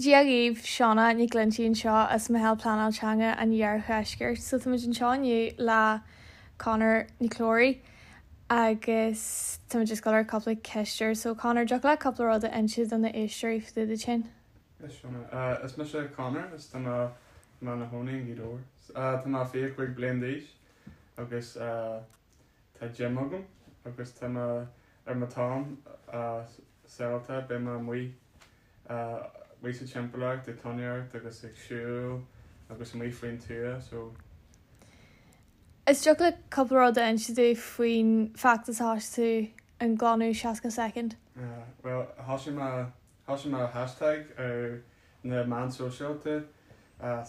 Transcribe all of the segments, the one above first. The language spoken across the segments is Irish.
Dia dhaoibh, Shauna Nic Loinsigh anseo as Meitheal Pleanáil Teanga an Iardheiscirt. So táimid anseo inniu le Conor Nic Clóraigh agus táimid just ag dul ar cúpla ceist air. So Conor, dtiocfadh leat cúpla rud a inse do na éisteoirí fá dtaobh duit féin? Yes Shauna. Is mise Conor is tá mé i mo chónaí i nGaoth Dobhair. Tá mé 25 bliain d'aois agus tá gym agam agus tá mé ar mo t-am saolta beidh mé amuigh amuigh sa timpeallacht ag fánaíocht agus ag siúl agus amuigh faoin tuath so. Is dtiocfadh leat cúpla rud a inse dúinn faoin feachtas a thosaigh tú an glanadh 60 soicind? Bhuel thosaigh mé thosaigh mé hashtag ar na meáin sóisialta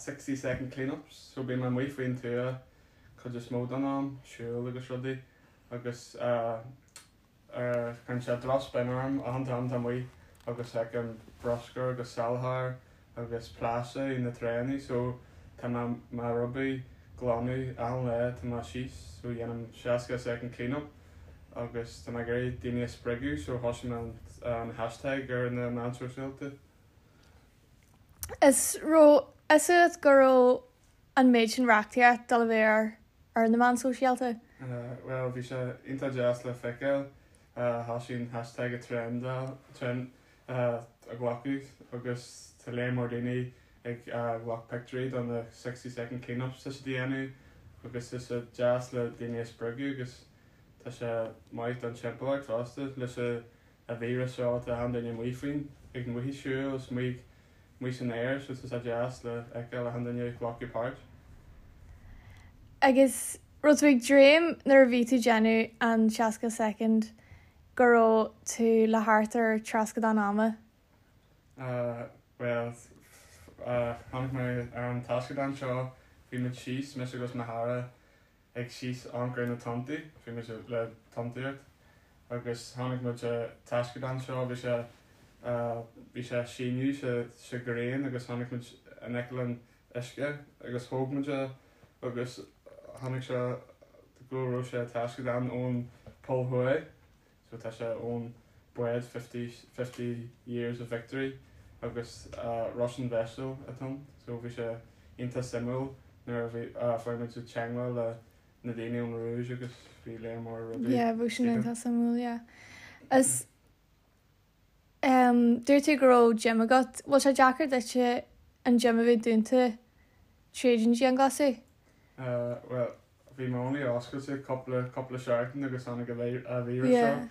60 second cleanups so bíonn mé amuigh faoin tuath cuid is mó den am, siúl agus rudaí agus cuireann sé drochspin orm achan t-am tá amuigh agus feicim bruscar agus salachar agus plaisteach na tránna so tá mé mo rubaí glanadh achan lá tá mé síos so dhéanaim 60 second clean up agus tá mé ag iarraidh daoine a spreagadh so thosaigh mé an hashtag ar na meáin sóisialta. Is raibh fhios agat go raibh an méid sin reachtaíocht dul a bheith ar ar na meáin sóisialta? Bhuel, bhí sé iontach deas le feiceáil. Thosaigh an hashtag ag trendáil, trend a ghlacadh agus tá léar mór daoine ag ghlac pictiúirí do na 60 second clean ups tá siad a dhéanamh agus tá sé deas le daoine a spreagadh agus tá sé maith don timpeallacht fosta leis an víreas seo tá achan duine amuigh faoin ag amuigh ag siúl is amuigh amuigh san aer so tá sé deas le feiceáil achan duine ag glacadh páirt. Agus raibh tú ag dréim nuair a bhí tú déanamh an 60 soicind go raibh tú le thart ar trascadán ama? Bhuel, tháinig mé ar an taisceadán seo, bhí muid síos, mise agus mo chara, ag síos amharc ar na tonntaí, bhí muid le tonntaíocht agus tháinig muid ar taisceadán seo, bhí sé bhí sé síneadh sa sa ghrian agus tháinig muid in aice leis an uisce agus thóg muid é agus tháinig sé go raibh sé taisceadán ón Pol Thuaidh. So tá sé ón bád 50, 50 years of victory agus Russian vessel atá ann. So bhí sé iontach suimiúil nuair a bhí, fuair muid teagmháil le na daoine ón Rúis agus bhí léar mór rudaí. Yeah, bhí sin iontach suimiúil, yeah. Is dúirt tú go raibh gym agat. Bhfuil sé deacair duitse an gym a bheith dúnta tríd an dianghlasáil? Bhuel, Bhí mé only oscailte cúpla cúpla seachtain agus tháinig an víreas seo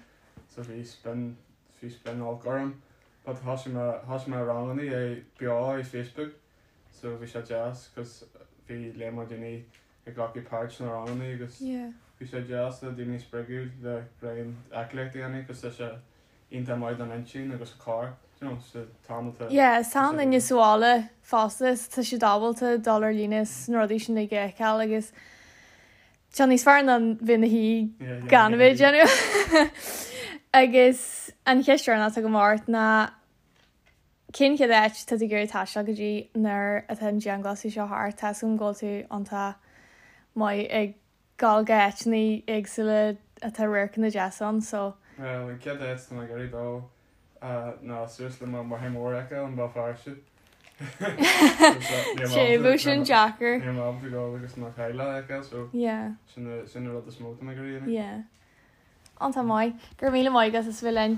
so bhí spin bhí spin olc orm but thosaigh mé thosaigh mé rangannaí é beo ar Facebook so bhí sé deas cos bhí léar mór daoine ag glacadh páirt sna rangannaí agus bhí sé deas le daoine a spreagadh le braon aclaíocht a dhéanamh cos tá sé iontach maith don intinn agus an corp you know sa t-am atá Yeah, is tá an duine sa bhaile fosta is tá siad ábalta dul ar líne is na rudaí sin uilig a fheiceáil agus tá níos fearr ná bheith ina shuí gan a bheith ag déanamh. Agus an cheist dheireanach atá agam ort ná cén chéad áit tá tú ag iarraidh taisteal go dtí nuair atá an dianghlasáil seo thart? Tá 'fhios agam go bhfuil tú iontach maith ag dul go áiteanna éagsúla atá radharcanna deasa ann so. Bhuel, an chéad áit tá mé ag iarraidh dul ná suas le mo mháthair mhór a fheiceáil i mBéal Feirste. Sé, bheadh sin deacair. Níl mé ábalta dul agus mo theaghlach a fheiceáil so Yeah. sin an rud is mó tá mé ag iarraidh a dhéanamh. Yeah. Iontach maith. Go raibh míle maith agat as a bheith linn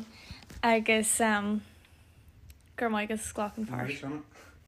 agus go raibh maith agat as glacadh páirt. Shona.